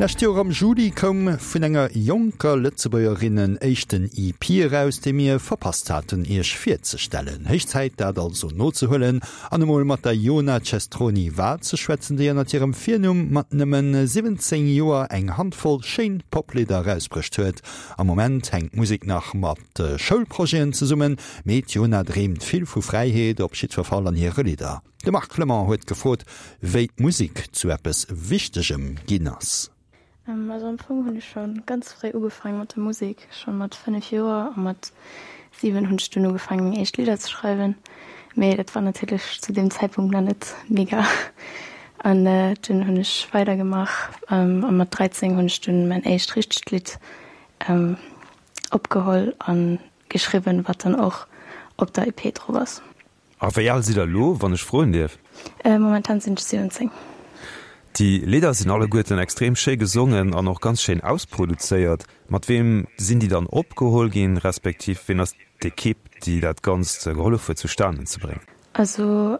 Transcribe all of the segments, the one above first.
Lescht Joer am Juli koum vun enger jonker Lëtzebuergerin en éischten EP eraus, dee mir verpasst haten iech virzestellen. Héich Zäit dat also nozehuelen an emol mat der Jona Cestroni Wahl ze schwätzen, déi ënnert hirem Virnumm mat nëmmen 17 Joer eng Handvoll schéin Poplidder erausbruecht huet. Am Moment hänkt d'Musek nach mat Schoulprojeten zesummen, mee d'Jona dreemt vill vu Fräiheet, op jiddwer Fall an hire Lidder. De Marc Clement huet gefrot, wéi d'Musek zu eppes Wichtegem ginn ass. Also am Fong hunn ech scho ganz fréi ugefaange mat der Musek, scho mat 5 Joer a mat 7 hunn ech dunn ugefaange meng éischt Lidder ze schreiwen. Mee dat war natierlech zu deem Zäitpunkt nach net mega. An dunn hunn ech weidergemaach a mat 13 hunn ech dunn mäin éischt richtegt Lidd opgeholl a geschriwwen, wat dann och op der EP drop ass. A wéi al sidd der elo, wann ech froen dierf? Momentan sinn ech 17. Déi Lidder sinn alleguerten extrem schéi gesongen an och ganz schéin ausproduzéiert. Mat weem sinn déi dann opgeholl ginn, respektiv ween ass d'Ekipp, déi dat Ganzt gehollef huet zustanen ze bréngen? Also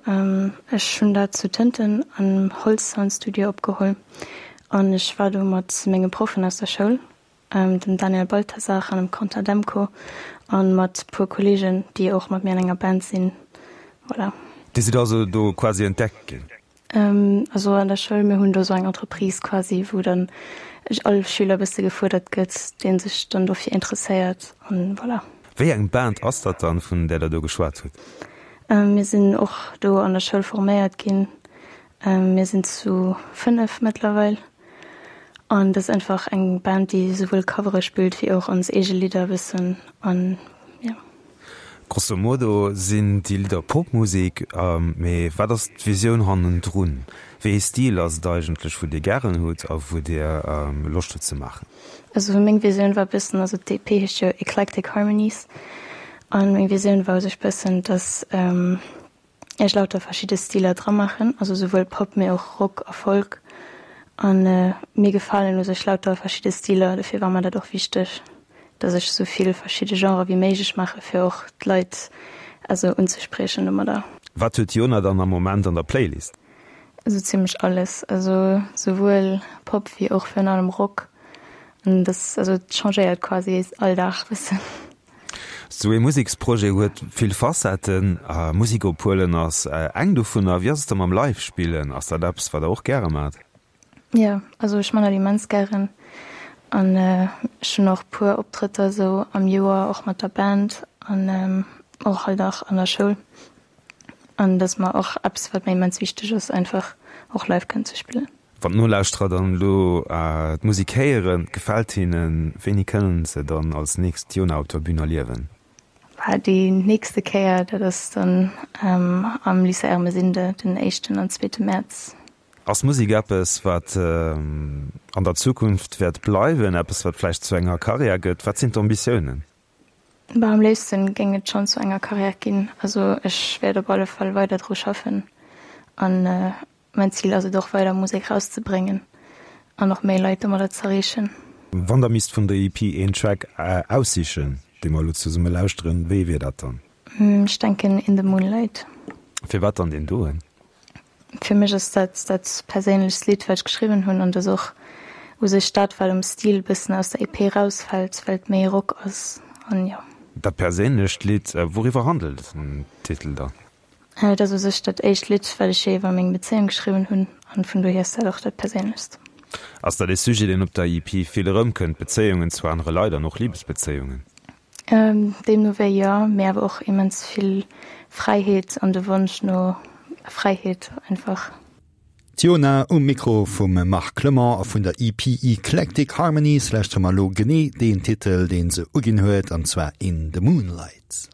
ech hunn dat zu Tënten am Holz Sound Studio opgeholl an ech war do mat menge Proffen aus der Schoul dem Daniel Balthasar an dem Quentin Demko an mat puer Kollegen déi och mat mir an enger Band sinn. Voilà. Dir sidd also do quasi entdeckt ginn? Also an der Schoul, mir hunn do sou eng Entreprise quasi wou dann all Schüler bësse gefuerdert gëtt deen sech dann dofir interesséiert an voilà. Wéi eng Band ass dat dann vun där der do geschwat hutt? Mir sinn och do an der Schoul forméiert ginn. Mir sinn zu 5 mëttlerweil an dat ass einfach eng Band, déi souwuel Covere spillt wéi och ons eege Lidder e bëssen an jo. Grosso modo sinn déi Lidder Popmusek, mee wat ass d'Visioun hannendrun? Wéi ee Stil ass et eigentlech, wou Dir gären hutt a wou Dir Loscht hutt ze maachen? Also meng Visioun war e bëssen, also d'EP heescht jo Eclectic Harmonies an meng Visioun war u sech bëssen, dass Ech lauter verschidde Stiler dra maachen, also souwuel Pop mee och Rock a Folk. An mir gefalen u sech lauter verschidde Stiler, dofir war mer dat och wichteg, dass ech sou vill verschidde Genrer wéi méiglech maache fir och d'Leit also unzespriechen domadder. Wat huet d'Jona dann am Moment an der Playlist? Esou zimmlech alles, also souwuel Pop wéi och virun allem Rock. An dass also et changéiert quasi all Dag bëssen. Sou ee Museksprojet huet vill Facetten. Musek ophuelen ass eng dovunner. Wéi ass et da mam Live spillen? Ass dat eppes, wat der och gäre maacht? Jo, also ech man dat immens gären an ech hunn och puer Optrëtter sou am Joer, och mat der Band an och halt nach an der Schoul. An dat ass mer och eppes, wat mir immens wichteg ass, einfach och live kënnen ze spillen. Wann d'Nolauschterer dann elo d'Musek héieren, et gefält hinnen, wéini kënnen se dann als nächst d'Jona op der Bün erliewen? Bah, déi nächste Kéier, dat ass dann am Lycée Ermesinde den éischten an zweete Mäerz. Ass Musek eppes, wat an der Zukunft wäert bleiwen, eppes, wat vläicht zu enger Karriär gëtt? Wat sinn d'Ambitiounen? Bah, am léifsten géing et schonn zu enger Karriär ginn. Also ech wäert op alle Fall weider dru schaffen an Mäin Zil ass et och weider Musek rauszebréngen an och méi Leit domadder z'erreechen. Wann der misst vun der EP een Track aussichen, dee mer elo zesumme lauschteren, wéi ee wier dat dann? Ech denken In the Moonlight. Firwat dann deen doen? Fir mech ass dat dat perséinlechst Lidd wat ech geschriwwen hunn an et ass och u sech dat wat um Stil e bëssen aus der EP rausfält, well et méi Rock ass an jo. Dat perséinlecht Lidd, wouriwwer handelt den Titel dann? Et ass u sech dat éischt Lidd, wat ech jee iwwer meng Bezéiung geschriwwen hunn, an vun dohier ass dat och dat perséinlechst. Ass dat ee Sujet, deen op der EP vill erëmkënnt, Bezéiungen zu anere Leit an och Libesbezéiungen? Deemno wéi jo, mee awer och immens vill Fräiheet an de Wonsch no Fräiheet einfach. D'Jona um Mikro vum Marc Clement a vun der EP Eclectic Harmonies lauschtere mer elo genee deen Titel, deen se uginn huet, an zwar In the Moonlight.